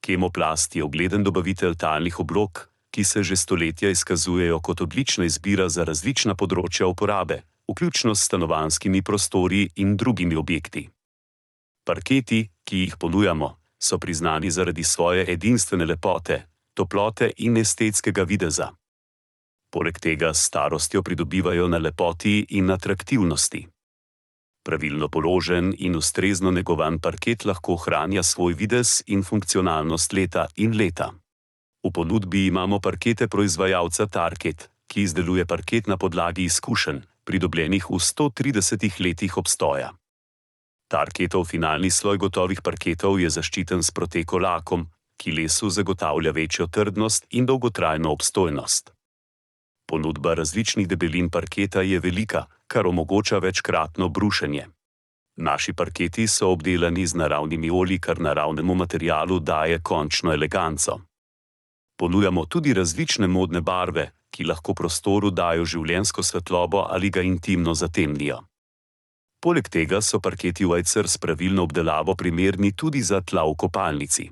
Kemoplast je ugleden dobavitelj talnih oblog, ki se že stoletja izkazujejo kot odlična izbira za različna področja uporabe, vključno s stanovanjskimi prostori in drugimi objekti. Parketi, ki jih ponujamo, so priznani zaradi svoje edinstvene lepote, toplote in estetskega videza. Poleg tega s starostjo pridobivajo na lepoti in atraktivnosti. Pravilno položen in ustrezno negovan parket lahko ohranja svoj videz in funkcionalnost leta in leta. V ponudbi imamo parkete proizvajalca Tarket, ki izdeluje parket na podlagi izkušenj, pridobljenih v 130 letih obstoja. Tarketov finalni sloj gotovih parketov je zaščiten s Proteko lakom, ki lesu zagotavlja večjo trdnost in dolgotrajno obstojnost. Ponudba različnih debelin parketa je velika, kar omogoča večkratno brušenje. Naši parketi so obdelani z naravnimi olji, kar naravnemu materialu daje končno eleganco. Ponujamo tudi različne modne barve, ki lahko prostoru dajo življenjsko svetlobo ali ga intimno zatemnijo. Poleg tega so parketi White Cers s pravilno obdelavo primerni tudi za tla v kopalnici.